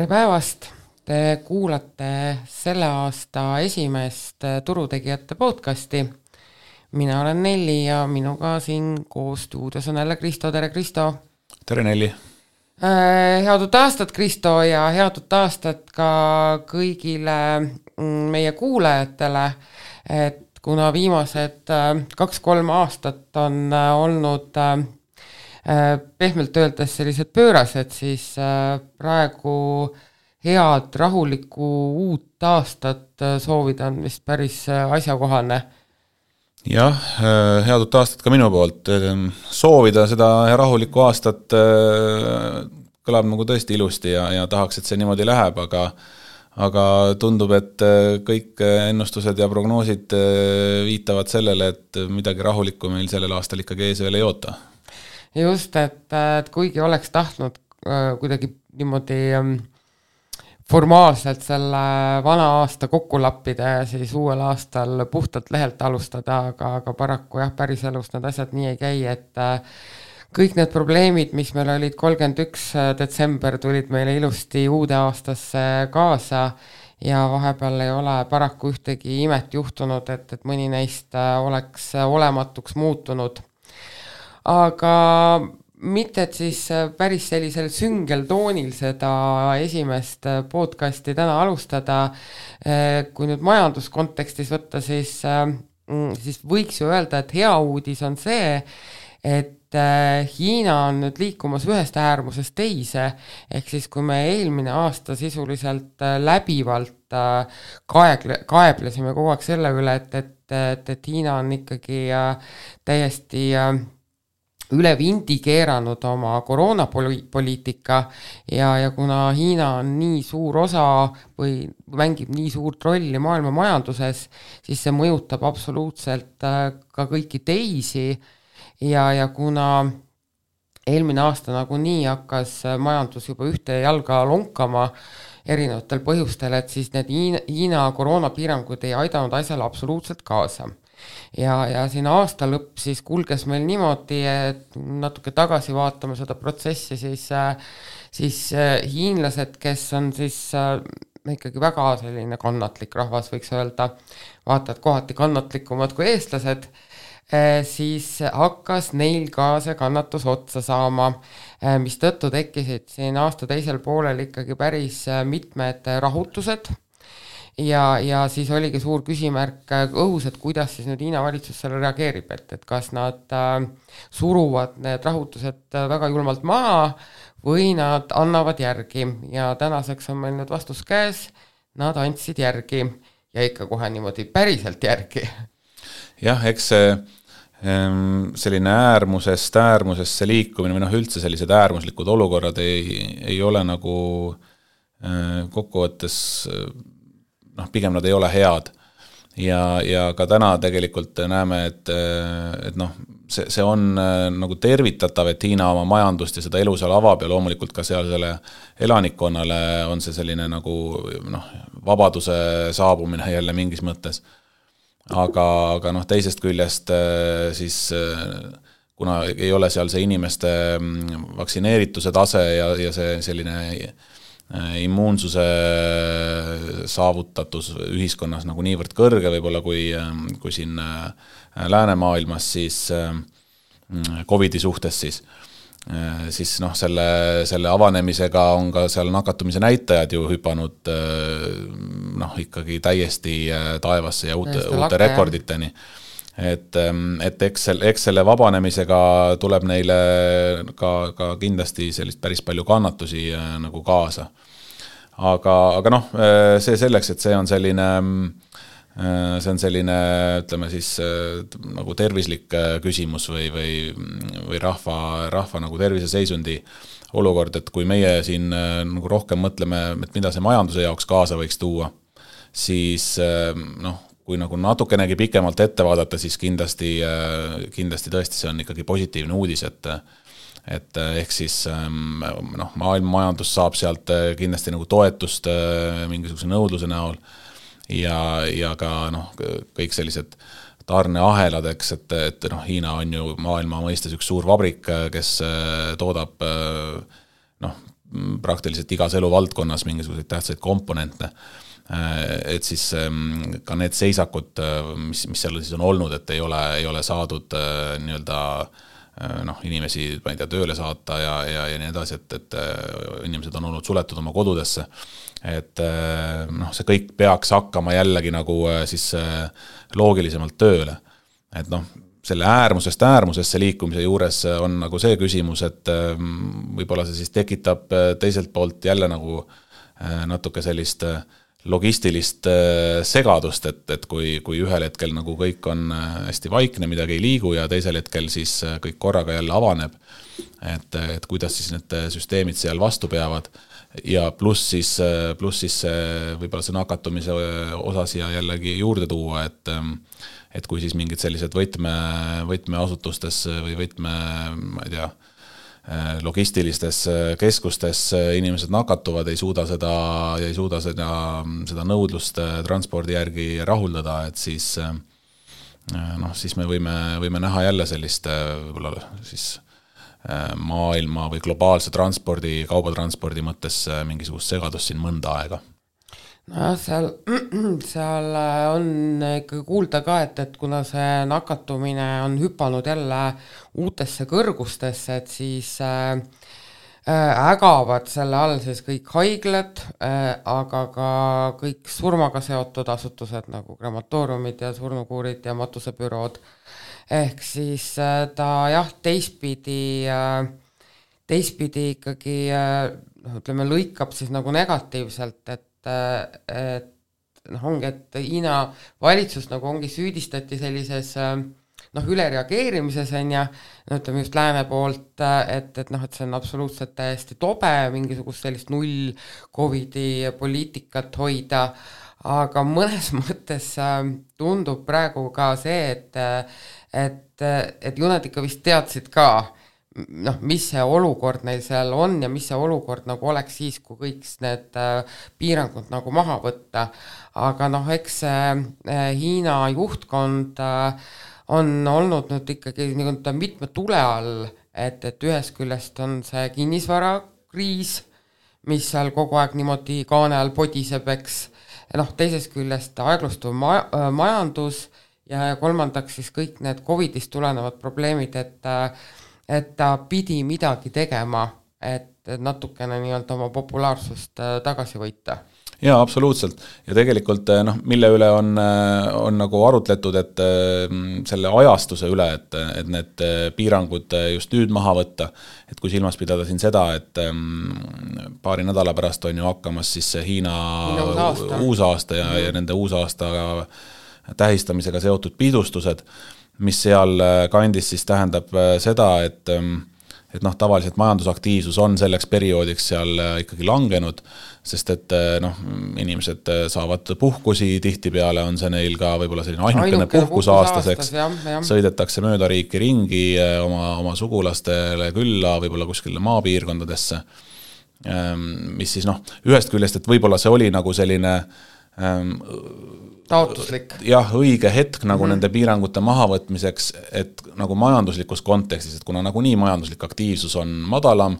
Tere päevast! Te kuulate selle aasta esimest turutegijate podcasti. Mina olen Nelli ja minuga siin koos stuudios on jälle Kristo. Tere Kristo! Tere Nelli! Head uut aastat, Kristo, ja head uut aastat ka kõigile meie kuulajatele, et kuna viimased 2-3 aastat on olnud pehmelt öeldes sellised pöörased, siis praegu head rahulikku uut aastat soovida on vist päris asjakohane. Jah, head uut aastat ka minu poolt. Soovida seda rahulikku aastat kõlab nagu tõesti ilusti ja tahaks, et see niimoodi läheb, aga tundub, et kõik ennustused ja prognoosid viitavad sellele, et midagi rahulikku meil sellel aastal ikkagi ees veel ei oota. Just, et kuigi oleks tahtnud kuidagi niimoodi formaalselt selle vana aasta kokku lappida ja siis uuel aastal puhtalt lehelt alustada, aga paraku jah, päris elus need asjad nii ei käi, et kõik need probleemid, mis meil olid 31. detsember, tulid meile ilusti uude aastasse kaasa ja vahepeal ei ole paraku ühtegi imet juhtunud, et mõni neist oleks olematuks muutunud. Aga mitte, et siis päris sellisel süngel toonil seda esimest podcasti täna alustada. Kui nüüd majanduskontekstis võtta, siis võiks ju öelda, et hea uudis on see, et Hiina on nüüd liikumas ühest äärmusest teise, ehk siis kui me eelmine aasta sisuliselt läbivalt kaeblesime kogu aeg selle üle, et Hiina on ikkagi täiesti üle vindi keeranud oma koroonapoliitika ja kuna Hiina on nii suur osa või mängib nii suurt rolli maailma majanduses, siis see mõjutab absoluutselt ka kõiki teisi ja kuna eelmine aasta nagunii hakkas majandus juba ühte jalga lonkama erinevatel põhjustel, et siis need Hiina koroonapiirangud ei aidanud asjale absoluutselt kaasa. Ja siin aasta lõpp siis kulges meil niimoodi, et natuke tagasi vaatame seda protsessi, siis hiinlased, kes on siis ikkagi väga selline kannatlik rahvas, võiks öelda, vaatad kohati kannatlikumad kui eestlased, siis hakkas neil ka see kannatus otsa saama, mis tõttu tekkisid siin aasta teisel poolel ikkagi päris mitmed rahutused, ja siis oligi suur küsimärk õhus, et kuidas siis nüüd Hiina valitsus selle reageerib, et kas nad suruvad need rahutused väga julmalt maha või nad annavad järgi ja tänaseks on meil nüüd vastus käes, nad andsid järgi ja ikka kohe niimoodi päriselt järgi. Jah, eks see selline äärmusesse liikumine või üldse sellised äärmuslikud olukorrad ei ole nagu kokkuvõttes pigem nad ei ole head ja ka täna tegelikult näeme, et see on nagu tervitatav, et Hiina oma majandust ja seda elu seal avab ja loomulikult ka seal selle elanikkonnale on see selline nagu vabaduse saabumine jälle mingis mõttes. Aga teisest küljest siis kuna ei ole seal see inimeste vaktsineerituse tase ja see selline immuunsuse saavutatus ühiskonnas nagu niivõrd kõrge võib-olla kui siin läänemaailmas siis COVID-i suhtes siis selle avanemisega on ka seal nakatumise näitajad ju hüpanud ikkagi täiesti taevasse ja uute rekorditeni. Et eks selle vabanemisega tuleb neile ka kindlasti sellist päris palju kannatusi nagu kaasa. Aga see selleks, et see on selline, ütleme siis nagu tervislik küsimus või rahva nagu terviseseisundi olukord, et kui meie siin nagu rohkem mõtleme, et mida see majanduse jaoks kaasa võiks tuua, siis kui nagu natukenegi pikemalt ette vaadata, siis kindlasti tõesti see on ikkagi positiivne uudis, et ehk siis maailma majandus saab sealt kindlasti nagu toetust mingisuguse nõudluse näol ja ka kõik sellised tarneahelad, eks, et Hiina on ju maailma mõistes üks suur vabrik, kes toodab praktiliselt igas eluvaldkonnas mingisuguseid tähtsaid komponente, et siis ka need seisakud, mis seal siis on olnud, et ei ole saadud nii-öelda inimesi, ma ei tea, tööle saata ja nii edasi, et inimesed on olnud suletud oma kodudesse, et see kõik peaks hakkama jällegi nagu siis loogilisemalt tööle, et selle äärmusest äärmusesse liikumise juures on nagu see küsimus, et võib-olla see siis tekitab teiselt poolt jälle nagu natuke sellist logistilist segadust, et kui ühel hetkel nagu kõik on hästi vaikne, midagi ei liigu ja teisel hetkel siis kõik korraga jälle avaneb, et kuidas siis need süsteemid seal vastu peavad ja pluss siis võib-olla see nakatumise osa siia jällegi juurde tuua, et kui siis mingid sellised võtmeasutustes või ma ei tea, logistilistes keskustes inimesed nakatuvad, ei suuda seda nõudlust transpordi järgi rahuldada, et siis me võime näha jälle sellist võib-olla siis maailma või globaalse transpordi, kaubatranspordi mõttes mingisugust segadust siin mõnda aega. Nojah, seal on ikkagi kuulda ka, et kuna see nakatumine on hüpanud jälle uutesse kõrgustesse, et siis ägavad selle all siis kõik haiglad, aga ka kõik surmaga seotud asutused nagu krematooriumid ja surnukuurid ja matusebürood. Ehk siis ta jah, teistpidi ikkagi ütleme, lõikab siis nagu negatiivselt, et ongi, et Hiina valitsus nagu ongi süüdistati sellises ülereageerimises ütleme just lääne poolt, et see on absoluutselt täiesti tobe mingisugust sellist null Covidi poliitikat hoida, aga mõnes mõttes tundub praegu ka see, et ju nad ikka vist teadsid ka, mis see olukord neil seal on ja mis see olukord nagu oleks siis, kui kõik need piirangud nagu maha võtta. Aga eks Hiina juhtkond on olnud nüüd ikkagi mitme tule all, et ühest küljest on see kinnisvarakriis, mis seal kogu aeg niimoodi kaane all podiseb, eks, teisest küljest aeglustuv majandus ja kolmandaks siis kõik need Covidist tulenevad probleemid, et ta pidi midagi tegema, et natukene nii-öelda oma populaarsust tagasi võita. Jaa, absoluutselt. Ja tegelikult mille üle on nagu arutletud, et selle ajastuse üle, et need piirangud just nüüd maha võtta, et kui silmas pidada siin seda, et paari nädala pärast on ju hakkamas siis Hiina uusaasta ja nende uusaasta tähistamisega seotud pidustused, mis seal kandis siis tähendab seda, et tavaliselt majandusaktiivsus on selleks perioodiks seal ikkagi langenud, sest et inimesed saavad puhkusi, tihtipeale on see neil ka võib-olla selline ainukene puhkus aastaseks, sõidetakse mööda riiki ringi oma sugulastele külla, võib-olla kuskile maapiirkondadesse, mis siis ühest küljest, et võib-olla see oli nagu selline taotluslik. Jah, õige hetk nagu nende piirangute mahavõtmiseks, et nagu majanduslikus kontekstis, et kuna nagu nii majanduslik aktiivsus on madalam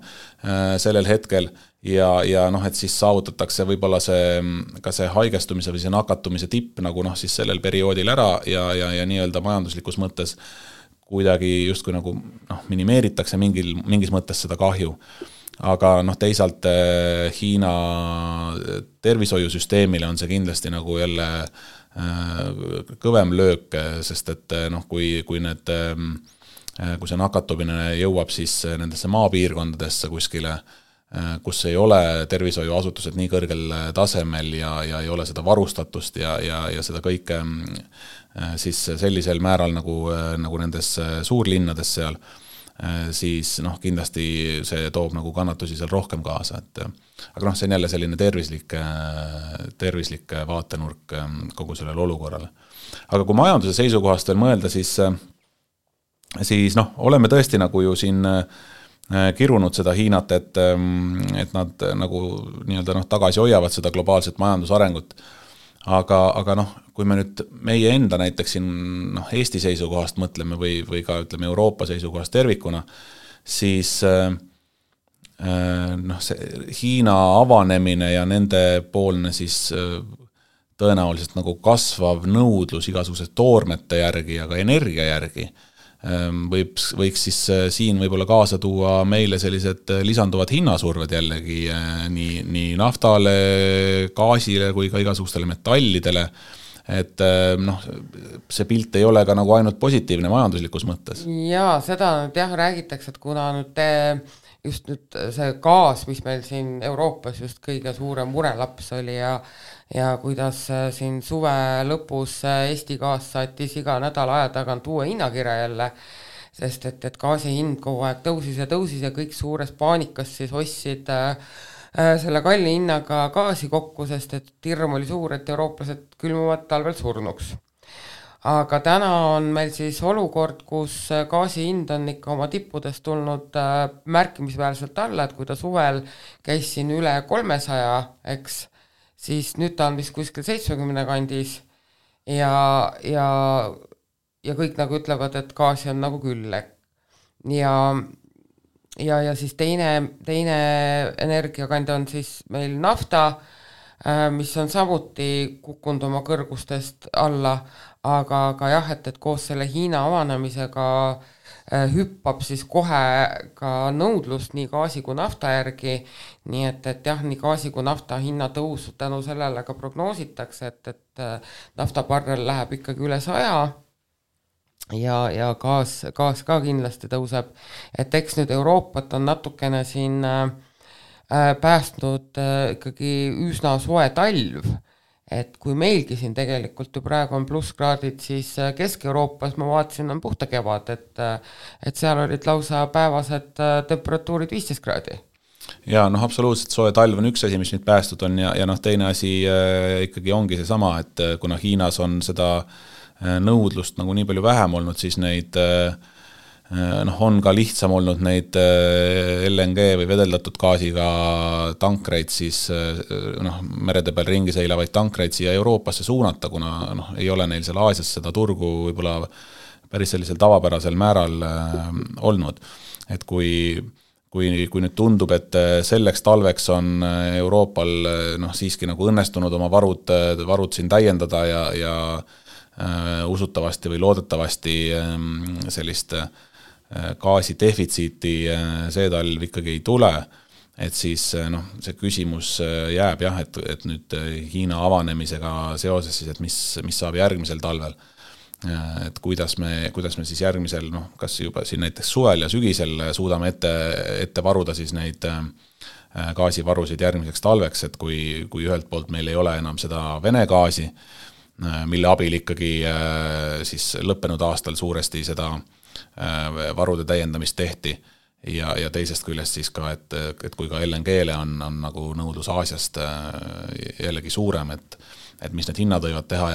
sellel hetkel ja et siis saavutatakse võib-olla ka see haigestumise või see nakatumise tipp nagu siis sellel perioodil ära ja nii-öelda majanduslikus mõttes kuidagi justkui nagu minimeeritakse mingis mõttes seda kahju. Aga teisalt Hiina tervishoiusüsteemile on see kindlasti nagu jälle kõvem löök, sest et kui see nakatumine jõuab siis nendesse maapiirkondadesse kuskile, kus ei ole tervishoiuasutused nii kõrgel tasemel ja ei ole seda varustatust ja seda kõike siis sellisel määral nagu nendes suurlinnades seal, siis kindlasti see toob nagu kannatusi seal rohkem kaasa, aga see on jälle selline tervislik vaatenurk kogu sellele olukorrale. Aga kui majanduse seisukohast veel mõelda, siis oleme tõesti nagu ju siin kirunud seda Hiinat, et nad nagu nii-öelda tagasi hoiavad seda globaalset majandusarengut. Aga kui me nüüd meie enda näiteks siin Eesti seisukohast mõtleme või ka ütleme Euroopa seisukohast tervikuna, siis noh, see Hiina avanemine ja nende poolne siis tõenäoliselt nagu kasvav nõudlus igasugused toormete järgi ja ka energia järgi võiks siis siin võib-olla kaasa tuua meile sellised lisanduvad hinnasurved jällegi nii naftale, gaasile kui ka igasugustele metallidele, et noh, see pilt ei ole ka nagu ainult positiivne majanduslikus mõttes. Jaa, seda nüüd jah räägitakse, et kuna nüüd just nüüd see gaas, mis meil siin Euroopas just kõige suurem murelaps oli ja kuidas siin suve lõpus Eesti gaas saatis iga nädala aja tagant uue hinnakirja jälle, sest et gaasi hind kogu aeg tõusis ja kõik suures paanikas siis ostsid selle kalli hinnaga gaasi kokku, sest et hirm oli suur, et eurooplased külmuvad talvel surnuks. Aga täna on meil siis olukord, kus gaasi hind on ikka oma tippudest tulnud märkimisväärselt alla, et kui ta suvel käis siin üle 300, eks, siis nüüd ta on vist kuskil 70 kandis ja kõik nagu ütlevad, et gaasi on nagu küll. Ja siis teine energiakandja on siis meil nafta, mis on samuti kukkunud oma kõrgustest alla, aga jah, et koos selle Hiina avanemisega hüppab siis kohe ka nõudlust nii gaasi kui nafta järgi, nii et jah, nii gaasi kui nafta hinna tõusu tänu sellele ka prognoositakse, et naftabarrel läheb ikkagi üle 100 ja gaas ka kindlasti tõuseb, et eks nüüd Euroopat on natukene siin päästnud ikkagi üsna soe talv, et kui meilgi siin tegelikult ju praegu on plusskraadid, siis Kesk-Euroopas ma vaatasin on puhta kevad, et seal olid lausa päevased temperatuurid 15 kraadi. Ja noh, absoluutselt soe talv on üks asi, mis nüüd päästud on ja noh, teine asi ikkagi ongi see sama, et kuna Hiinas on seda nõudlust nagu nii palju vähem olnud, siis neid on ka lihtsam olnud neid LNG või vedeldatud gaasiga tankreid siis merede peal ringi seilavaid tankreid siia Euroopasse suunata, kuna ei ole neil seal Aasias seda turgu võib-olla päris sellisel tavapärasel määral olnud. Et kui nüüd tundub, et selleks talveks on Euroopal siiski nagu õnnestunud oma varud siin täiendada ja usutavasti või loodetavasti sellist gaasi defitsiiti see talv ikkagi ei tule, et siis see küsimus jääb jah, et nüüd Hiina avanemisega seoses siis, et mis saab järgmisel talvel, et kuidas me siis järgmisel, kas juba siin näiteks suvel ja sügisel suudame ette varuda siis neid gaasivarusid järgmiseks talveks, et kui ühelt poolt meil ei ole enam seda Vene gaasi, mille abil ikkagi siis lõppenud aastal suuresti seda varude täiendamist tehti ja teisest küljest siis ka, et kui ka LNG-le on nagu nõudlus Aasiast jällegi suurem, et mis need hinnad võivad teha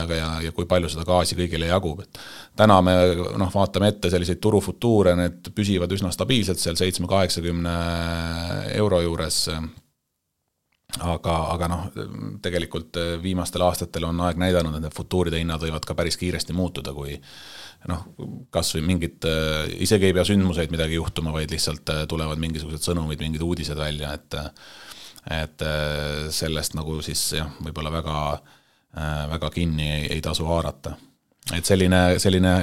ja kui palju seda gaasi kõigile jagub. Et täna me vaatame ette selliseid turufutuure, need püsivad üsna stabiilselt seal 7-80 euro juures, aga tegelikult viimastel aastatel on aeg näidanud, et futuuride hinnad võivad ka päris kiiresti muutuda, kui kas või mingid, isegi ei pea sündmuseid midagi juhtuma, vaid lihtsalt tulevad mingisugused sõnumid, mingid uudised välja, et sellest nagu siis jah, võib-olla väga kinni ei tasu haarata. Et selline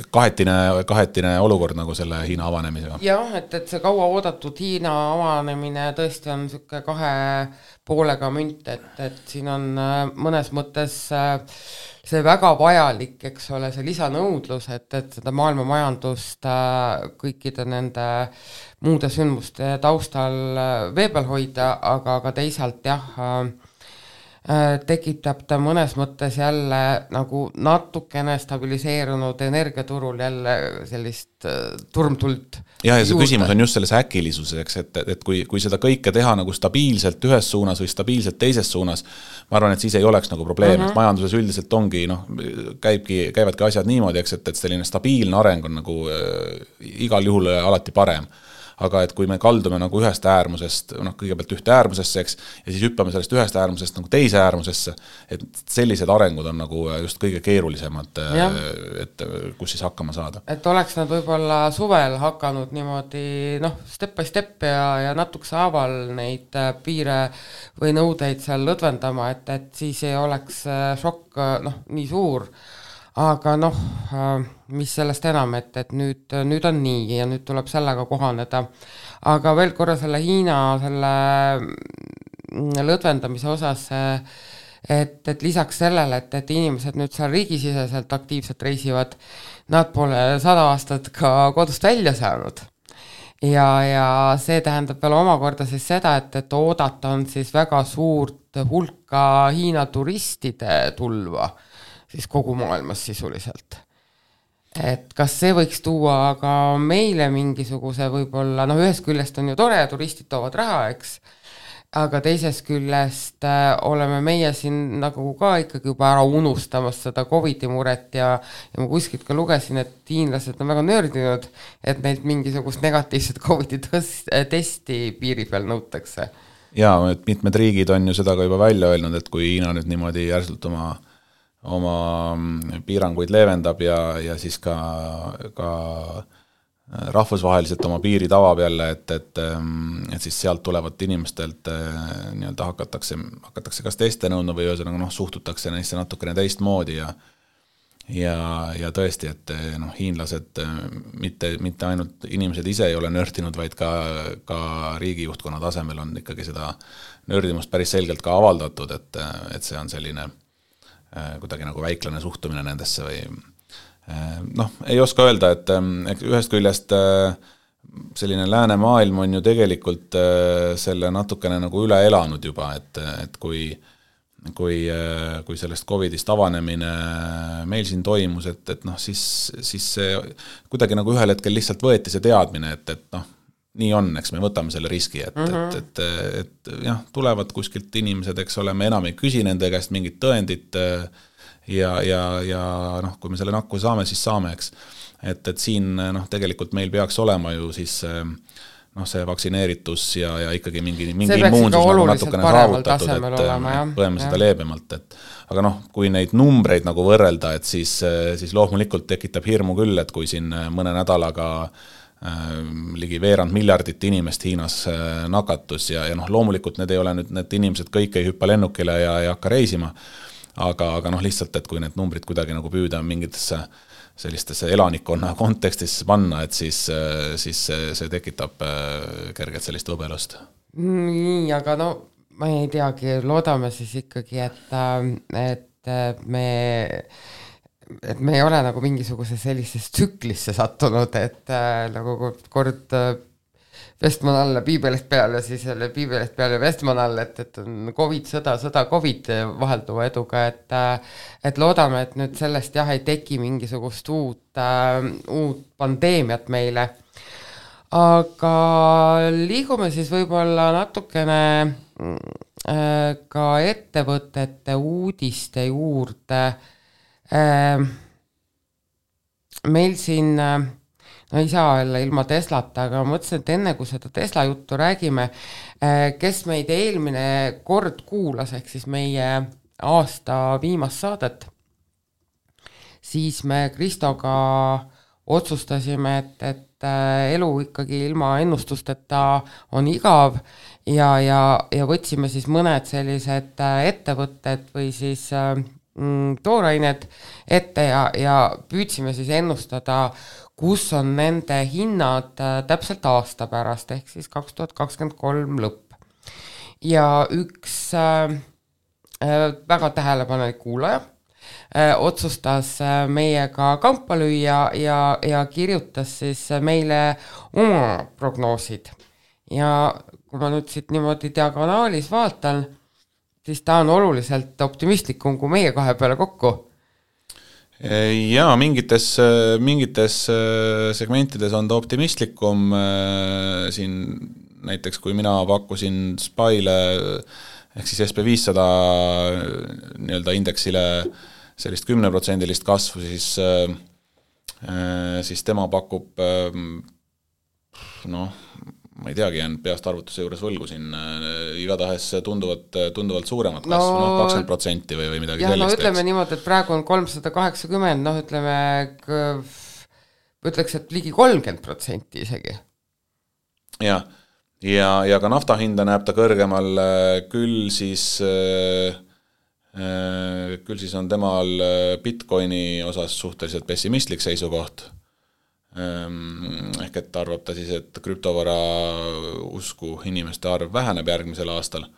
kahetine olukord nagu selle Hiina avanemisega. Jah, et see kaua oodatud Hiina avanemine tõesti on selline 2 poolega münt, et siin on mõnes mõttes see väga vajalik, eks ole, see lisanõudlus, et seda maailma majandust kõikide nende muude sündmuste taustal vee peal hoida, aga teisalt jah, tekitab ta mõnes mõttes jälle nagu natukene stabiliseerunud energiaturul jälle sellist turmtuld. Ja see küsimus on just selles äkilisuseks, et kui seda kõike teha nagu stabiilselt ühes suunas või stabiilselt teises suunas, ma arvan, et siis ei oleks nagu probleem, et majanduses üldiselt ongi, käivadki asjad niimoodi, et selline stabiilne areng on nagu igal juhul alati parem. aga et kui me kaldume nagu ühest äärmusest, kõigepealt ühte äärmusesse, eks, ja siis hüppame sellest ühest äärmusest nagu teise äärmusesse, et sellised arengud on nagu just kõige keerulisemad, et kus siis hakkama saada. Et oleks nad võib-olla suvel hakanud niimoodi, step by step ja natukese haaval neid piire või nõudeid seal lõdvendama, et siis ei oleks šokk nii suur, aga mis sellest enam, et nüüd on nii ja nüüd tuleb sellega kohaneda. Aga veel korra selle Hiina selle lõdvendamise osas, et lisaks sellele, et inimesed nüüd seal riigisiseselt aktiivselt reisivad, nad pole 100 aastat ka kodust välja saanud. Ja see tähendab veel omakorda siis seda, et oodata on siis väga suurt hulka Hiina turistide tulva siis kogu maailmas sisuliselt. Et kas see võiks tuua ka meile mingisuguse võib-olla, ühest küljest on ju tore, turistid toovad raha, eks, aga teisest küljest oleme meie siin nagu ka ikkagi juba ära unustamas seda COVID-i muret ja ma kuskilt ka lugesin, et hiinlased on väga nördinud, et neilt mingisugust negatiivset COVID-i testi piiri peal nõutakse. Jaa, et mitmed riigid on ju seda ka juba välja öelnud, et kui Hiina nüüd niimoodi järsult oma piiranguid leevendab ja siis ka rahvusvaheliselt oma piirid avab jälle, et siis sealt tulevat inimestelt nii-öelda hakatakse kas teste nõudma või ühesõnaga suhtutakse neisse natukene teistmoodi ja tõesti, et hiinlased mitte ainult inimesed ise ei ole nördinud, vaid ka riigijuhtkonna tasemel on ikkagi seda nördimust päris selgelt ka avaldatud, et see on selline kuidagi nagu väiklane suhtumine nendesse või ei oska öelda, et ühest küljest selline lääne maailm on ju tegelikult selle natukene nagu üle elanud juba, et kui sellest COVIDist avanemine meil siin toimus, et siis see kuidagi nagu ühel hetkel lihtsalt võeti see teadmine, et nii on, eks me võtame selle riski, et jah, tulevad kuskilt inimesed, eks ole, me enam ei küsi nende käest mingit tõendit ja kui me selle nakku saame, siis saame, eks. Et siin tegelikult meil peaks olema ju siis see vaktsineeritus ja ikkagi mingi immuunsus nagu natukene saavutatud, et põeme seda leebemalt. Aga kui neid numbreid nagu võrrelda, et siis loomulikult tekitab hirmu küll, et kui siin mõne nädalaga ligi 2 miljardit inimest Hiinas nakatus ja loomulikult need ei ole nüüd, need inimesed kõik ei hüppa lennukile ja ei hakka reisima, aga lihtsalt, et kui need numbrid kuidagi nagu püüda mingitesse sellistesse elanikkonna kontekstisse panna, et siis see tekitab kergelt sellist võbelust. Nii, aga ma ei teagi, loodame siis ikkagi, et me ei ole nagu mingisuguse sellisesse tsüklisse sattunud, et nagu kord Vestman alla, piibelist peale, siis jälle piibelist peale Vestman alla, et on COVID, sõda, COVID vahelduva eduga, et loodame, et nüüd sellest ei teki mingisugust uut pandeemiat meile. Aga liigume siis võib-olla natukene ka ettevõtete uudiste juurde. Meil siin ei saa olla ilma Teslata, aga mõtlesin, et enne kui seda Tesla juttu räägime, kes meid eelmine kord kuulas, ehk siis meie aasta viimast saadet, siis me Kristoga otsustasime, et elu ikkagi ilma ennustusteta on igav ja võtsime siis mõned sellised ettevõtted või siis toorained ette ja püüdsime siis ennustada, kus on nende hinnad täpselt aasta pärast, ehk siis 2023 lõpp. Ja üks väga tähelepanelik kuulaja otsustas meiega kampa lüüa ja kirjutas siis meile oma prognoosid. Ja kui ma nüüd siit niimoodi diagonaalis vaatan, siis ta on oluliselt optimistlikum kui meie kahe peale kokku. Jaa, mingites segmentides on ta optimistlikum, siin näiteks kui mina pakkusin SPY-le ehk siis SP500 nii-öelda indeksile sellist 10% kasvu, siis tema pakub ma ei teagi, jään peast arvutuse juures võlgu siin, igatahes tunduvalt suuremat kasvu, 20% või midagi sellist. No ütleme niimoodi, et praegu on 380, ütleks, et ligi 30% isegi. Ja ka nafta hinda näeb ta kõrgemal, küll siis on temal Bitcoini osas suhteliselt pessimistlik seisukoht. Ehk et arvab ta siis, et krüptovara usku inimeste arv väheneb järgmisel aastal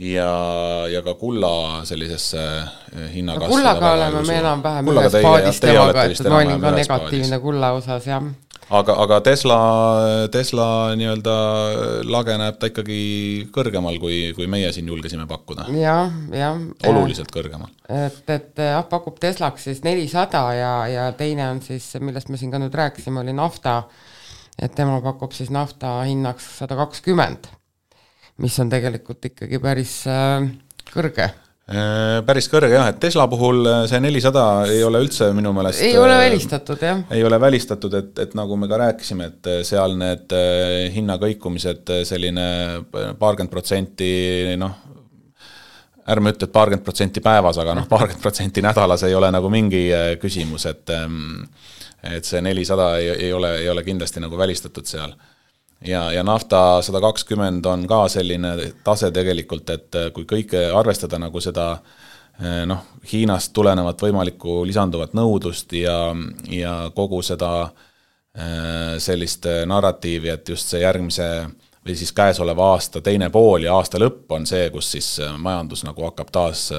ja ka kulla sellisesse hinnakasvu. Kullaga oleme me enam-vähem ühes paadis temaga, et ma olin ka negatiivne kulla osas, jah. Aga Tesla nii-öelda lage näeb ta ikkagi kõrgemal, kui meie siin julgesime pakkuda. Ja. Oluliselt kõrgemal. Et pakub Teslaks siis 400 ja teine on siis, millest me siin ka nüüd rääkisime, oli nafta, et tema pakub siis nafta hinnaks 120, mis on tegelikult ikkagi päris kõrge. Päris kõrge, jah, et Tesla puhul see 400 ei ole üldse minu meelest... Ei ole välistatud, jah. Ei ole välistatud, et nagu me ka rääkisime, et seal need hinnakõikumised selline 40%, ärme ütle, et 40% päevas, aga 40% nädalas ei ole nagu mingi küsimus, et see 400 ei ole kindlasti nagu välistatud seal. Ja nafta 120 on ka selline tase tegelikult, et kui kõike arvestada nagu seda Hiinast tulenevat võimalikku lisanduvat nõudlust ja kogu seda sellist narratiivi, et just see järgmise või siis käesoleva aasta teine pool ja aasta lõpp on see, kus siis majandus nagu hakkab taas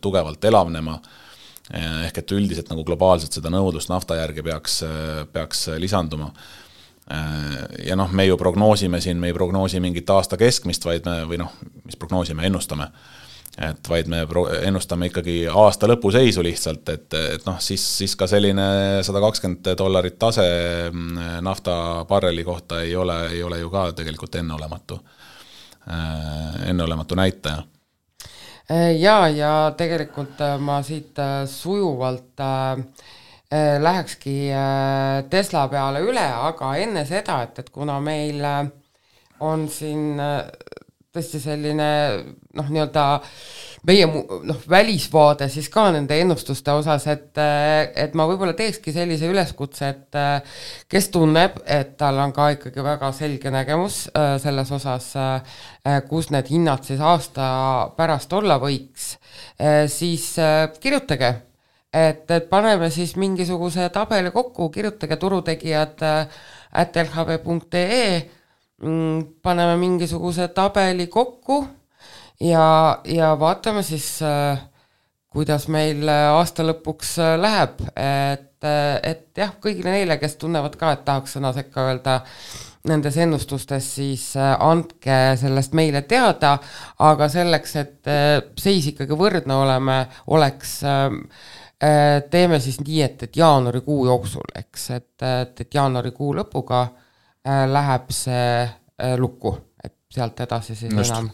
tugevalt elavnema, ehk et üldiselt nagu globaalselt seda nõudlust nafta järgi peaks lisanduma. Ja me ju prognoosime siin, me ei prognoosi mingit aasta keskmist, mis prognoosime, ennustame. Et vaid me ennustame ikkagi aasta lõpu seisu lihtsalt, et siis ka selline $120 tase nafta barreli kohta ei ole ju ka tegelikult enneolematu näitaja. Ja tegelikult ma siit sujuvalt lähekski Tesla peale üle, aga enne seda, et kuna meil on siin tõesti selline nii-öelda meie välisvaade siis ka nende ennustuste osas, et ma võib-olla teekski sellise üleskutse, et kes tunneb, et tal on ka ikkagi väga selge nägemus selles osas, kus need hinnad siis aasta pärast olla võiks, siis kirjutage. Et paneme siis mingisuguse tabeli kokku, kirjutage turutegijad @lhv.ee, paneme mingisuguse tabeli kokku ja vaatame siis, kuidas meil aasta lõpuks läheb. Et jah, kõigile neile, kes tunnevad ka, et tahaks sõna sekka öelda nendes ennustustes, siis andke sellest meile teada, aga selleks, et seis ikkagi võrdne oleks teeme siis nii, et jaanuarikuu jooksul, eks, et jaanuarikuu lõpuga läheb see lukku, et sealt edasi siis enam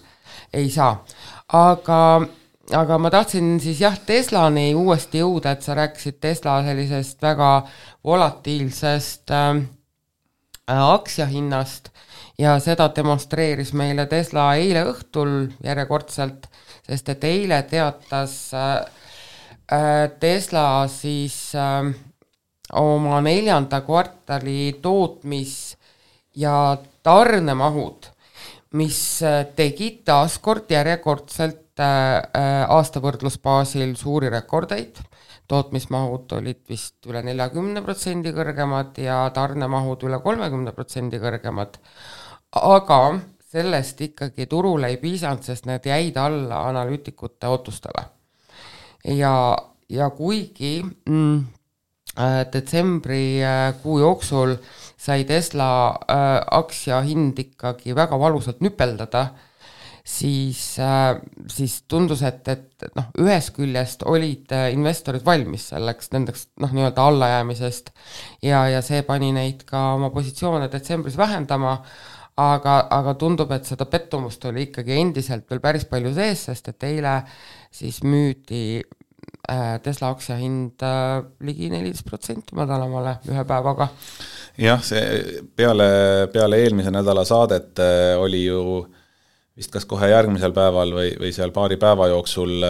ei saa. Aga ma tahtsin siis Teslani uuesti jõuda, et sa rääkisid Tesla sellisest väga volatiilsest aktsiahinnast ja seda demonstreeris meile Tesla eile õhtul järjekordselt, sest et eile teatas Tesla siis oma 4. kvartali tootmis- ja tarnemahud, mis tegid taaskord järjekordselt aastavõrdlusbaasil suuri rekordeid. Tootmismahud olid vist üle 40% kõrgemad ja tarnemahud üle 30% kõrgemad. Aga sellest ikkagi turule ei piisanud, sest need jäid alla analüütikute ootustele. Ja kuigi detsembri kuu jooksul sai Tesla aktsia hind ikkagi väga valusalt nüpeldada, siis tundus, et ühes küljest olid investorid valmis selleks nendeks nii-öelda allajäämisest ja see pani neid ka oma positsioone detsembris vähendama, aga tundub, et seda pettumust oli ikkagi endiselt veel päris palju sees, sest et eile siis müüdi Tesla aktsia hind ligi 14% madalamale ühe päevaga. jah, see peale eelmise nädala saadet oli ju vist kas kohe järgmisel päeval või seal paari päeva jooksul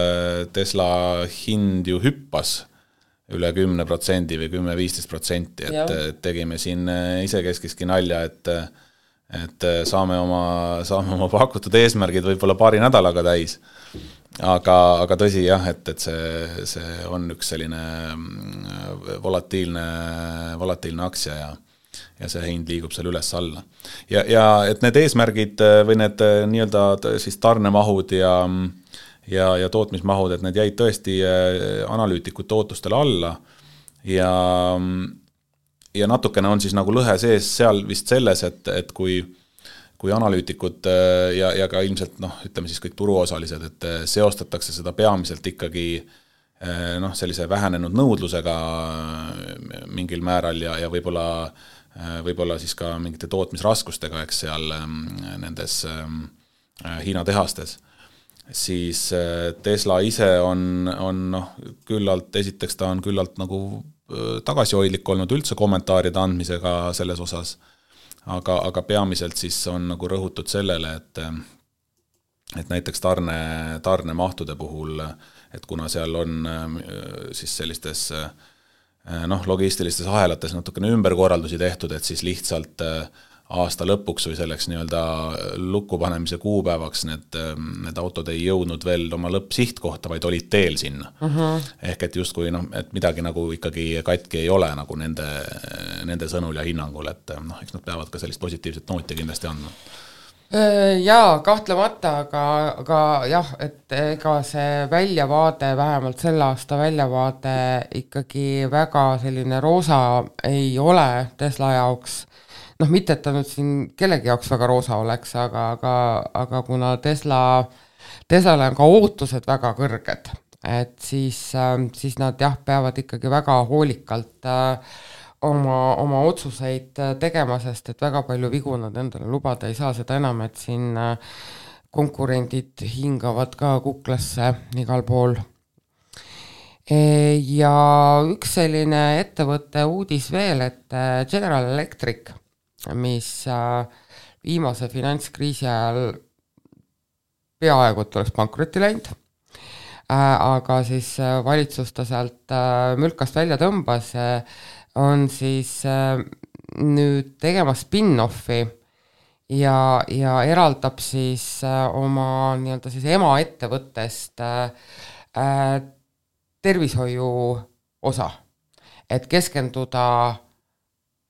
Tesla hind ju hüppas üle 10% või 10-15%, et tegime siin isekeskski nalja, et saame oma pakutud eesmärgid võib-olla paari nädalaga täis. Aga tõsi jah, et see on üks selline volatiilne aktsia ja see hind liigub seal üles alla. Ja et need eesmärgid või need nii-öelda siis tarnemahud ja tootmismahud, et need jäid tõesti analüütikute ootustele alla ja natukene on siis nagu lõhe sees seal vist selles, et kui analüütikud ja ka ilmselt ütleme siis kõik turuosalised, et seostatakse seda peamiselt ikkagi sellise vähenenud nõudlusega mingil määral ja võib-olla siis ka mingite tootmisraskustega, eks seal nendes Hiina tehastes, siis Tesla ise on küllalt, esiteks ta on küllalt nagu tagasihoidlik olnud üldse kommentaaride andmisega selles osas, aga peamiselt siis on nagu rõhutud sellele, et näiteks tarnemahtude puhul, et kuna seal on siis sellistes logistilistes ahelates natukene ümberkorraldusi tehtud, et siis lihtsalt aasta lõpuks või selleks nii-öelda lukkupanemise kuupäevaks need autod ei jõudnud veel oma lõppsihtkohta, vaid olid teel sinna. Ehk et justkui, et midagi nagu ikkagi katki ei ole nagu nende sõnul ja hinnangul, et eks nad peavad ka sellist positiivset nooti kindlasti andma. Jaa, kahtlemata, aga jah, et ega see väljavaade, vähemalt selle aasta väljavaade ikkagi väga selline roosa ei ole Tesla jaoks. Mitte, et ta nüüd siin kellegi jaoks väga roosa oleks, aga kuna Teslale on ka ootused väga kõrged, et siis nad jah, peavad ikkagi väga hoolikalt oma otsuseid tegema, sest et väga palju vigu nad endale lubada ei saa, seda enam, et siin konkurendid hingavad ka kuklasse igal pool. Ja üks selline ettevõtte uudis veel, et General Electric, mis viimase finantskriisi ajal peaaegu et oleks pankrotti läinud, aga siis valitsus ta sealt mülkast välja tõmbas, on siis nüüd tegema spin-offi ja eraldab siis oma nii-öelda siis emaettevõttest tervishoiu osa, et keskenduda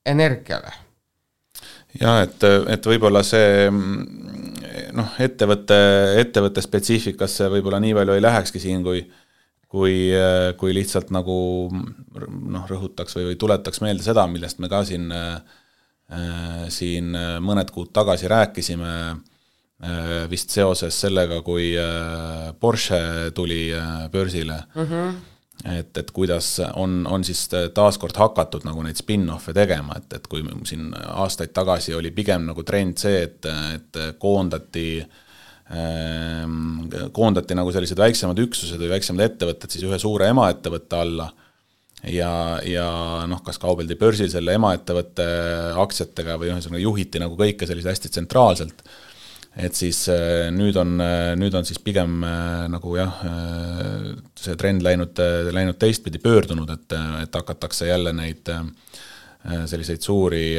energiale. Ja, et võib-olla see ettevõtte spetsiifikasse võib-olla nii palju ei lähekski siin, kui lihtsalt nagu rõhutaks või tuletaks meelde seda, millest me ka siin mõned kuud tagasi rääkisime vist seoses sellega, kui Porsche tuli börsile, et kuidas on siis taaskord hakatud nagu neid spin-offe tegema, et kui siin aastaid tagasi oli pigem nagu trend see, et koondati nagu sellised väiksemad üksused või väiksemad ettevõtted siis ühe suure emaettevõtte alla ja kas kaubeldi börsil selle emaettevõtte aktsiatega või juhiti nagu kõike sellise hästi tsentraalselt, et siis nüüd on siis pigem nagu jah, see trend läinud teistpidi pöördunud, et hakatakse jälle neid selliseid suuri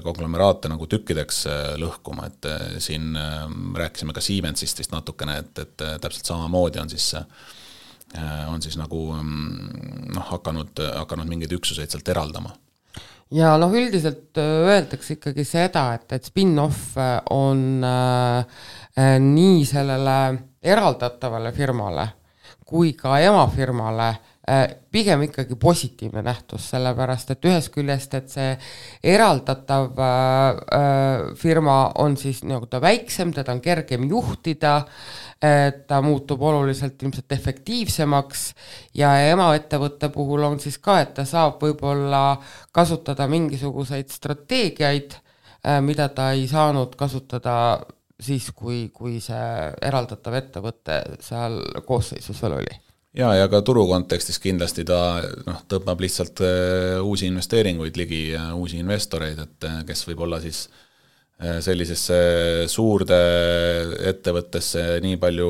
konglomeraate nagu tükkideks lõhkuma, et siin rääkisime ka Siemensist vist natukene, et täpselt samamoodi on siis nagu hakanud mingeid üksuseid sealt eraldama. Ja üldiselt öeldakse ikkagi seda, et spin-off on nii sellele eraldatavale firmale kui ka emafirmale pigem ikkagi positiivne nähtus, sellepärast, et ühest küljest, et see eraldatav firma on siis nagu ta väiksem, teda on kergem juhtida, ta muutub oluliselt ilmselt efektiivsemaks ja emaettevõtte puhul on siis ka, et ta saab võib-olla kasutada mingisuguseid strateegiaid, mida ta ei saanud kasutada siis, kui see eraldatav ettevõte seal koosseisus veel oli. ja ka turu kontekstis kindlasti ta tõmbab lihtsalt uusi investeeringuid ligi, uusi investoreid, et kes võib olla siis sellisesse suurde ettevõttesse nii palju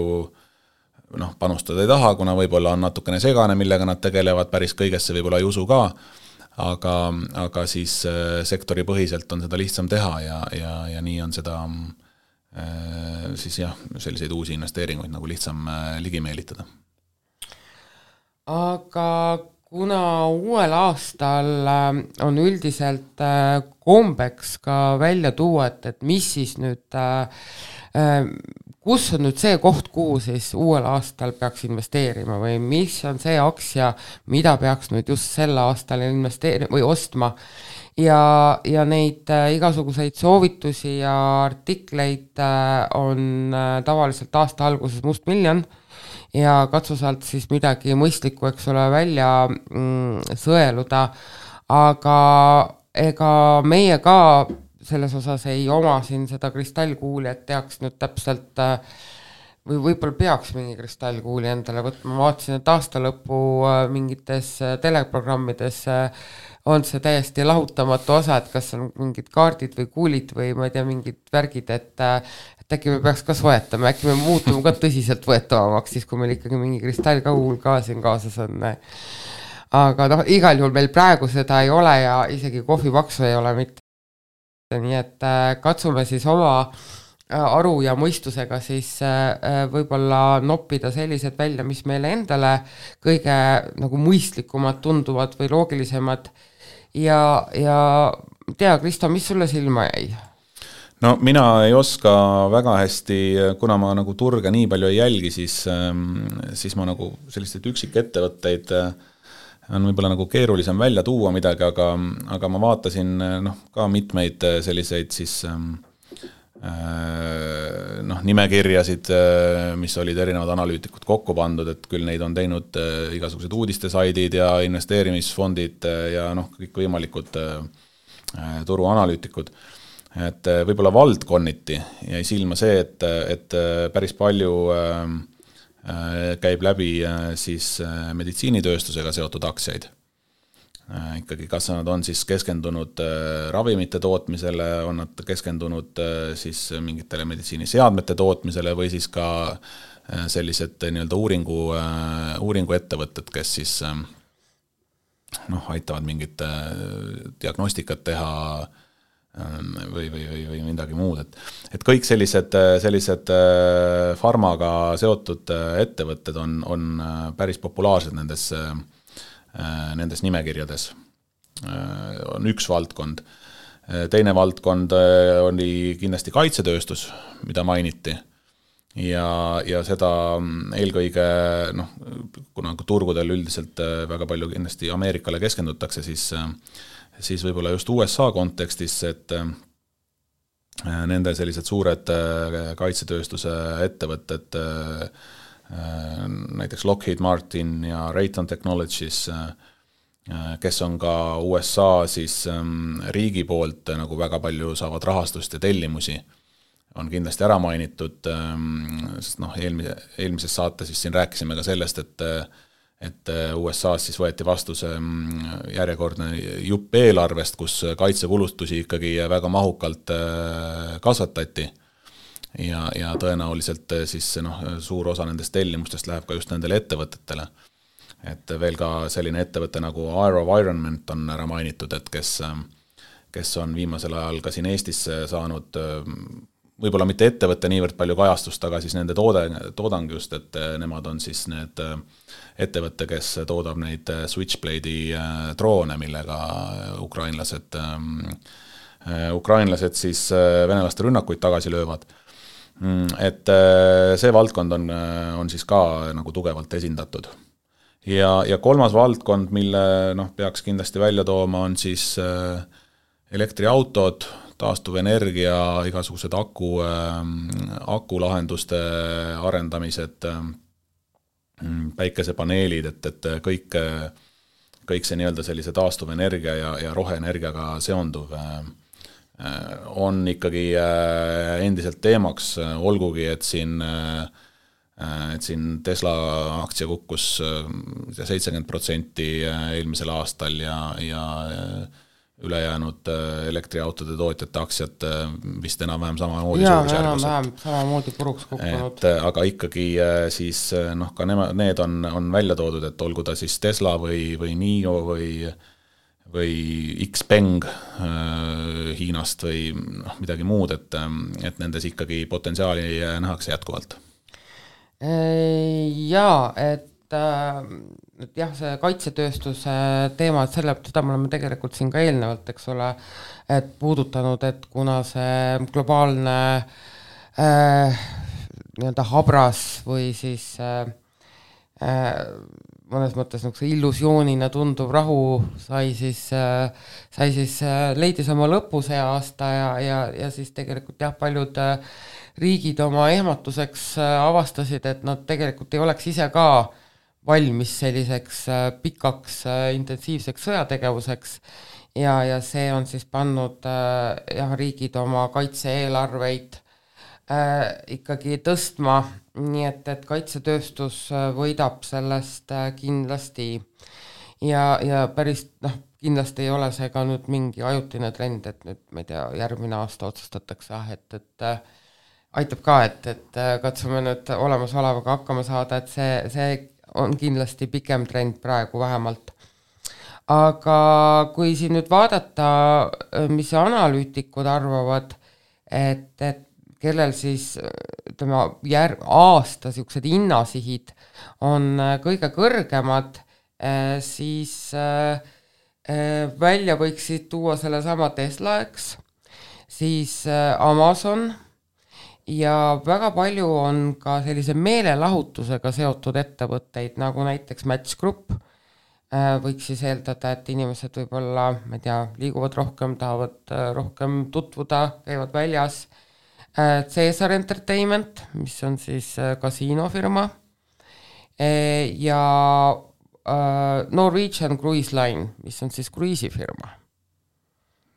panustada ei taha, kuna võib-olla on natukene segane, millega nad tegelevad, päris kõigesse võib-olla ei usu ka, aga siis sektori põhiselt on seda lihtsam teha ja nii on seda siis selliseid uusi investeeringuid nagu lihtsam ligi meelitada. Aga kuna uuel aastal on üldiselt kombeks ka välja tuua, et mis siis nüüd, kus on nüüd see koht, kuhu siis uuel aastal peaks investeerima või mis on see aktsia, mida peaks nüüd just sel aastal investeerima või ostma ja neid igasuguseid soovitusi ja artikleid on tavaliselt aasta alguses mustmiljon ja katsu sealt siis midagi mõistlikku, eks ole, välja sõeluda, aga ega meie ka selles osas ei oma siin seda kristallkuuli, et teaks nüüd täpselt või võib-olla peaks mingi kristallkuuli endale võtma, ma vaatasin, et aasta lõpu mingites teleprogrammides on see täiesti lahutamatu osa, et kas on mingid kaardid või kuulid või ma ei tea, mingid värgid, et äkki me peaks ka soetama, äkki me muutume ka tõsiselt võetavamaks, siis kui meil ikkagi mingi kristallkuul ka siin kaasas on. Aga igal juhul meil praegu seda ei ole ja isegi kohvipaksu ei ole mitte. Nii et katsume siis oma aru ja mõistusega siis võib-olla noppida sellised välja, mis meile endale kõige nagu mõistlikumad tunduvad või loogilisemad ja tea, Kristo, mis sulle silma jäi? No mina ei oska väga hästi, kuna ma nagu turge nii palju ei jälgi, siis ma nagu selliseid üksikettevõtteid on võib-olla nagu keerulisem välja tuua midagi, aga ma vaatasin ka mitmeid selliseid siis nimekirjasid, mis olid erinevad analüütikud kokku pandud, et küll neid on teinud igasugused uudistesaidid ja investeerimisfondid ja kõik võimalikud turuanalüütikud. Et võib-olla valdkonniti jäi silma see, et päris palju käib läbi siis meditsiinitööstusega seotud aktsiaid. Ikkagi kas nad on siis keskendunud ravimite tootmisele, on nad keskendunud siis mingitele meditsiiniseadmete tootmisele või siis ka sellised nii-öelda uuringuettevõtted, kes siis aitavad mingit diagnostikat teha või midagi muud, et kõik sellised farmaga seotud ettevõtted on päris populaarsed nendes nimekirjades. On üks valdkond. Teine valdkond oli kindlasti kaitsetööstus, mida mainiti. Ja seda eelkõige, kuna turgudel üldiselt väga palju kindlasti Ameerikale keskendutakse, siis võib-olla just USA kontekstis, et nende sellised suured kaitsetööstuse ettevõtted, näiteks Lockheed Martin ja Raytheon Technologies, kes on ka USA siis riigi poolt nagu väga palju saavad rahastust ja tellimusi, on kindlasti ära mainitud, sest eelmises saates siis siin rääkisime ka sellest, et USA-s siis võeti vastu see järjekordne jupp eelarvest, kus kaitsekulutusi ikkagi väga mahukalt kasvatati ja tõenäoliselt siis suur osa nendest tellimustest läheb ka just nendele ettevõtetele. Et veel ka selline ettevõte nagu AeroVironment on ära mainitud, et kes on viimasel ajal ka siin Eestis saanud võib-olla mitte ettevõtte niivõrd palju kajastust, aga siis nende toodang just, et nemad on siis need ettevõtte, kes toodab neid Switchblade'i droone, millega ukrainlased siis venelaste rünnakuid tagasi löövad. Et see valdkond on siis ka nagu tugevalt esindatud. Ja kolmas valdkond, mille peaks kindlasti välja tooma, on siis elektriautod, taastuvenergia, igasugused akulahenduste arendamised, päikesepaneelid, et kõik see nii-öelda sellise taastuvenergia ja roheenergiaga seonduv on ikkagi endiselt teemaks, olgugi, et siin et siin Tesla aktsia kukkus 70% eelmisel aastal ja ülejäänud elektriautode tootjate aktsiad vist enam-vähem samamoodi suurusjärgus. Samamoodi puruks kukkunud. Aga ikkagi siis ka need on välja toodud, et olgu ta siis Tesla või NIO või Xpeng Hiinast või midagi muud, et nendes ikkagi potentsiaali nähakse jätkuvalt. Jaa, et jah, see kaitsetööstuse teema, et seda me oleme tegelikult siin ka eelnevalt, eks ole, et puudutanud, et kuna see globaalne nii-öelda habras või siis mõnes mõttes illusioonina tunduv rahu leidis oma lõpu see aasta ja siis tegelikult jah, paljud riigid oma ehmatuseks avastasid, et nad tegelikult ei oleks ise ka valmis selliseks pikaks intensiivseks sõjategevuseks ja see on siis pannud jah, riigid oma kaitse-eelarveid ikkagi tõstma, nii et kaitsetööstus võidab sellest kindlasti ja päris kindlasti ei ole see ka nüüd mingi ajutine trend, et nüüd, ma ei tea, järgmine aasta otsustatakse, et aitab ka, et katsume nüüd olemasolevaga hakkama saada, et see on kindlasti pikem trend praegu vähemalt. Aga kui siin nüüd vaadata, mis analüütikud arvavad, et kellel siis ütleme, aasta siuksed hinnasihid on kõige kõrgemad, siis välja võiksid tuua selle sama Tesla, eks, siis Amazon ja väga palju on ka sellise meelelahutusega seotud ettevõtteid, nagu näiteks Match Group. Võiks siis eeldada, et inimesed võib-olla, ma ei tea, liiguvad rohkem, tahavad rohkem tutvuda, käivad väljas. Caesar Entertainment, mis on siis kasiinofirma ja Norwegian Cruise Line, mis on siis kruiisifirma.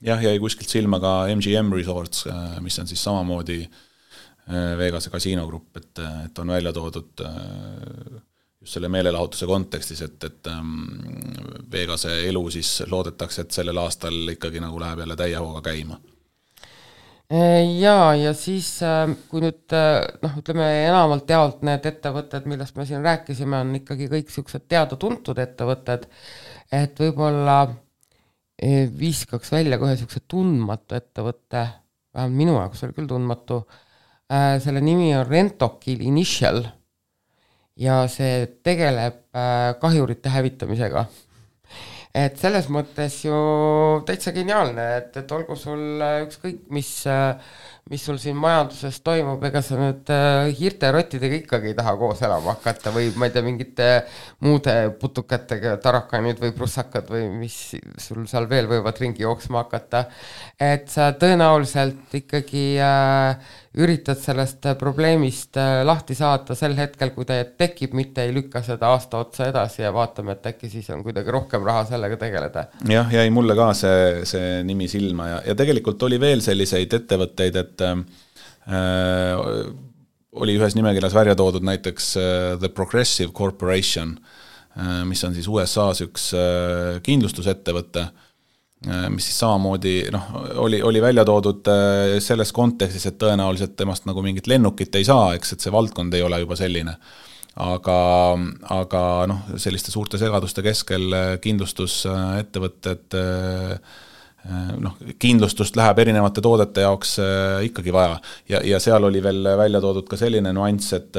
Jah, jäi kuskilt silma ka MGM Resorts, mis on siis samamoodi Vegase kasiinogrupp, et on välja toodud just selle meelelahutuse kontekstis, et Vegase elu siis loodetakse, et sellel aastal ikkagi nagu läheb jälle täie hooga käima. Ja siis kui nüüd ütleme enamalt jaolt need ettevõtted, millest me siin rääkisime, on ikkagi kõik siuksed teada-tuntud ettevõtted, et võib-olla viskaks välja kohe siukse tundmatu ettevõtte, vähemalt minu jaoks oli küll tundmatu, selle nimi on Rentokil Initial ja see tegeleb kahjurite hävitamisega. Et selles mõttes ju täitsa geniaalne, et olgu sul ükskõik, mis sul siin majanduses toimub, ega sa nüüd hirterottidega ikkagi ei taha koos elama hakata või ma ei tea, mingite muude putukatega, tarakanid või prussakad või mis sul seal veel võivad ringi jooksma hakata. Et sa tõenäoliselt ikkagi üritad sellest probleemist lahti saada sel hetkel, kui ta tekib, mitte ei lükka seda aasta otsa edasi ja vaatame, et äkki siis on kuidagi rohkem raha sellega tegeleda. Jah, jäi mulle ka see nimi silma ja tegelikult oli veel selliseid ettevõtteid, et oli ühes nimekirjas välja toodud näiteks The Progressive Corporation, mis on siis USA's üks kindlustusettevõte, mis siis samamoodi oli välja toodud selles kontekstis, et tõenäoliselt temast nagu mingit lennukit ei saa, eks, et see valdkond ei ole juba selline. Aga selliste suurte segaduste keskel kindlustusettevõtted, kindlustust läheb erinevate toodete jaoks ikkagi vaja. Ja seal oli veel välja toodud ka selline nuanss, et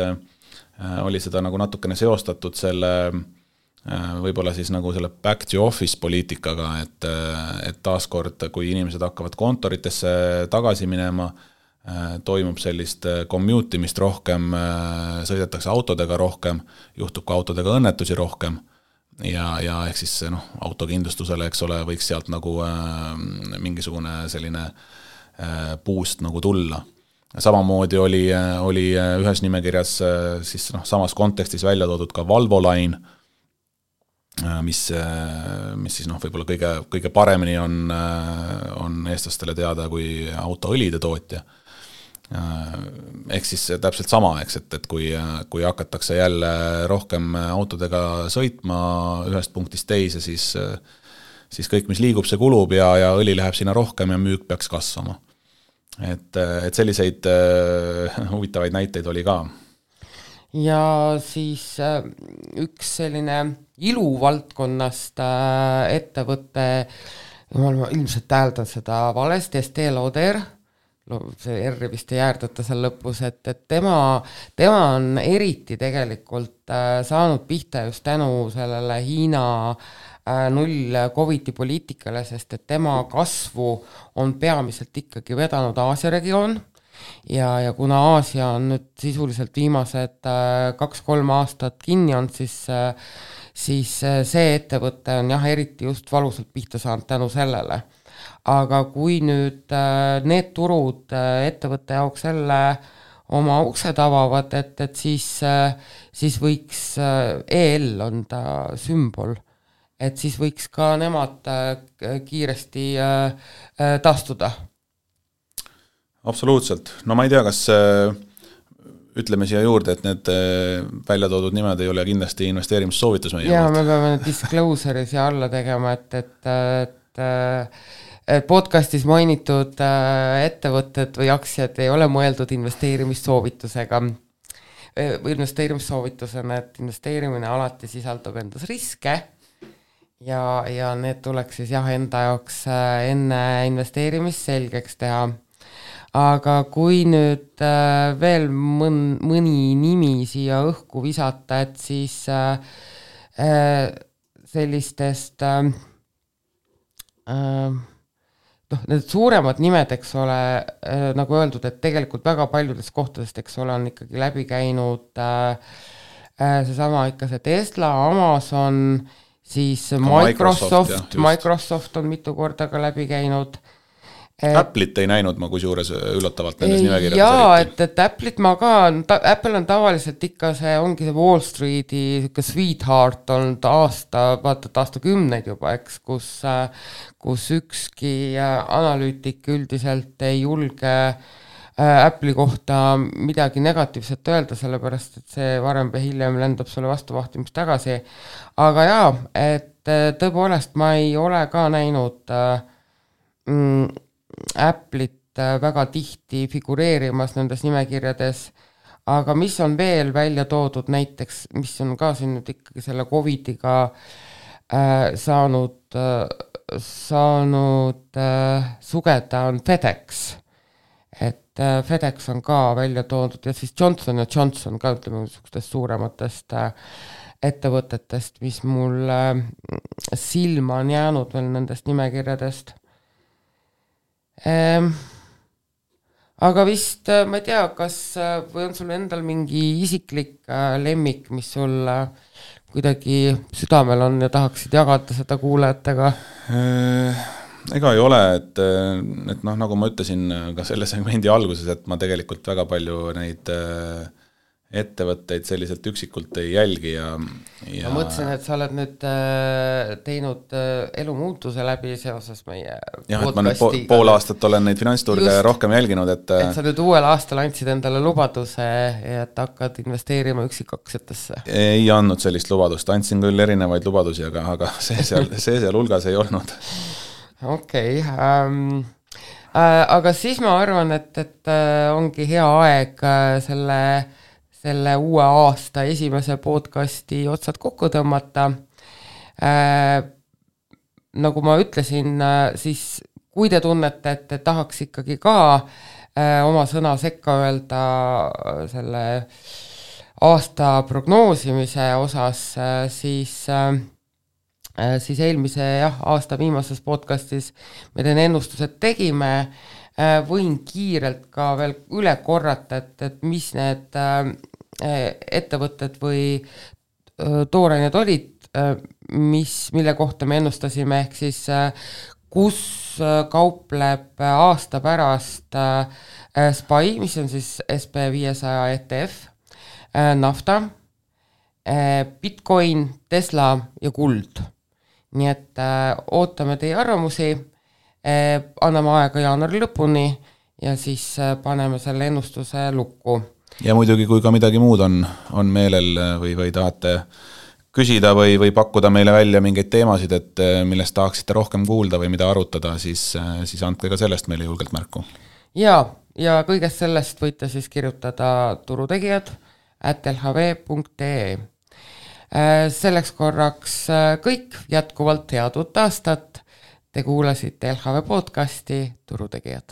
oli seda nagu natukene seostatud selle võib-olla siis nagu selle back to office poliitikaga, et taaskord, kui inimesed hakkavad kontoritesse tagasi minema, toimub sellist commute'imist rohkem, sõidetakse autodega rohkem, juhtub ka autodega õnnetusi rohkem ja ehk siis autokindlustusele, eks ole, võiks sealt nagu mingisugune selline boost nagu tulla. Samamoodi oli ühes nimekirjas siis samas kontekstis välja toodud ka Valvo Line, mis siis võib-olla kõige paremini on eestlastele teada kui autoõlide tootja. Ehk siis täpselt sama, eks, et kui hakatakse jälle rohkem autodega sõitma ühest punktist teise, siis kõik, mis liigub, see kulub ja õli läheb sinna rohkem ja müük peaks kasvama. Et selliseid huvitavaid näiteid oli ka. Ja siis üks selline iluvaldkonnast ettevõtte, ma ilmselt täheldan seda valesti, Estée Lauder, see R vist ei jäärdata seal lõpus, et tema on eriti tegelikult saanud pihta just tänu sellele Hiina null Covidi poliitikale, sest et tema kasvu on peamiselt ikkagi vedanud Aasia regioon ja kuna Aasia on nüüd sisuliselt viimased 2-3 aastat kinni on, siis see ettevõte on eriti just valusalt pihta saanud tänu sellele. Aga kui nüüd need turud ettevõtte jaoks jälle oma uksed avavad, et siis võiks EL on ta sümbol, et siis võiks ka nemad kiiresti taastuda. Absoluutselt. No ma ei tea, kas ütleme siia juurde, et need välja toodud nimed ei ole kindlasti investeerimissoovitus meie. Ja me peame disclosure'i siia alla tegema, et podcastis mainitud ettevõtted või aktsiad ei ole mõeldud investeerimissoovitusega või investeerimissoovitusena, et investeerimine alati sisaldab endas riske ja need tuleks siis enda jaoks enne investeerimist selgeks teha. Aga kui nüüd veel mõni nimi siia õhku visata, et siis sellistest need suuremad nimed, eks ole, nagu öeldud, et tegelikult väga paljudest kohtadest, eks ole, on ikkagi läbi käinud seesama ikka see Tesla, Amazon, siis Microsoft on mitu korda ka läbi käinud. Apple'it ei näinud ma kusjuures üllatavalt nendes nimekirjades. Jaa, et Apple'it ma ka, Apple on tavaliselt ikka ongi see Wall Streeti sweetheart olnud aastakümneid juba, eks, kus ükski analüütik üldiselt ei julge Apple'i kohta midagi negatiivset öelda, sellepärast, et see varem või hiljem lendab sulle vastuvahtimist tagasi. Aga jaa, et tõepoolest ma ei ole ka näinud Apple'it väga tihti figureerimas nendes nimekirjades, aga mis on veel välja toodud näiteks, mis on ka siin nüüd ikkagi selle Covidiga saanud sugeda on FedEx, et FedEx on ka välja toodud ja siis Johnson & Johnson ka ütleme niisugustest suurematest ettevõtetest, mis mul silma on jäänud veel nendest nimekirjadest. Aga vist, ma ei tea, kas või on sul endal mingi isiklik lemmik, mis sul kuidagi südamel on ja tahaksid jagada seda kuulajatega? Ega ei ole, et nagu ma ütlesin ka selle segmendi alguses, et ma tegelikult väga palju neid ettevõtteid selliselt üksikult ei jälgi ja ma mõtlesin, et sa oled nüüd teinud elumuutuse läbi seoses meie podcasti. Et ma nüüd pool aastat olen neid finantsturge rohkem jälginud, et sa nüüd uuel aastal andsid endale lubaduse, et hakkad investeerima üksikaktsiatesse. Ei andnud sellist lubadust, andsin küll erinevaid lubadusi, aga see seal hulgas ei olnud. Okei. Aga siis ma arvan, et ongi hea aeg selle uue aasta esimese podcasti otsad kokku tõmmata. Nagu ma ütlesin, siis kui te tunnete, et tahaks ikkagi ka oma sõna sekka öelda selle aasta prognoosimise osas, siis eelmise aasta viimases podcastis me teen ennustused tegime, võin kiirelt ka veel üle korrata, et mis need ettevõtted või toorained olid, mille kohta me ennustasime, ehk siis kus kaupleb aasta pärast SPY, mis on siis SP500 ETF, nafta, Bitcoin, Tesla ja kuld. Nii et ootame teie arvamusi, anname aega jaanuari lõpuni ja siis paneme selle ennustuse lukku. Ja muidugi, kui ka midagi muud on meelel või tahate küsida või pakkuda meile välja mingeid teemasid, et millest tahaksite rohkem kuulda või mida arutada, siis andke ka sellest meile julgelt märku. Ja kõigest sellest võite siis kirjutada turutegijad@lhv.ee. Selleks korraks kõik, jätkuvalt head uut aastat. Te kuulasite LHV podcasti Turutegijad.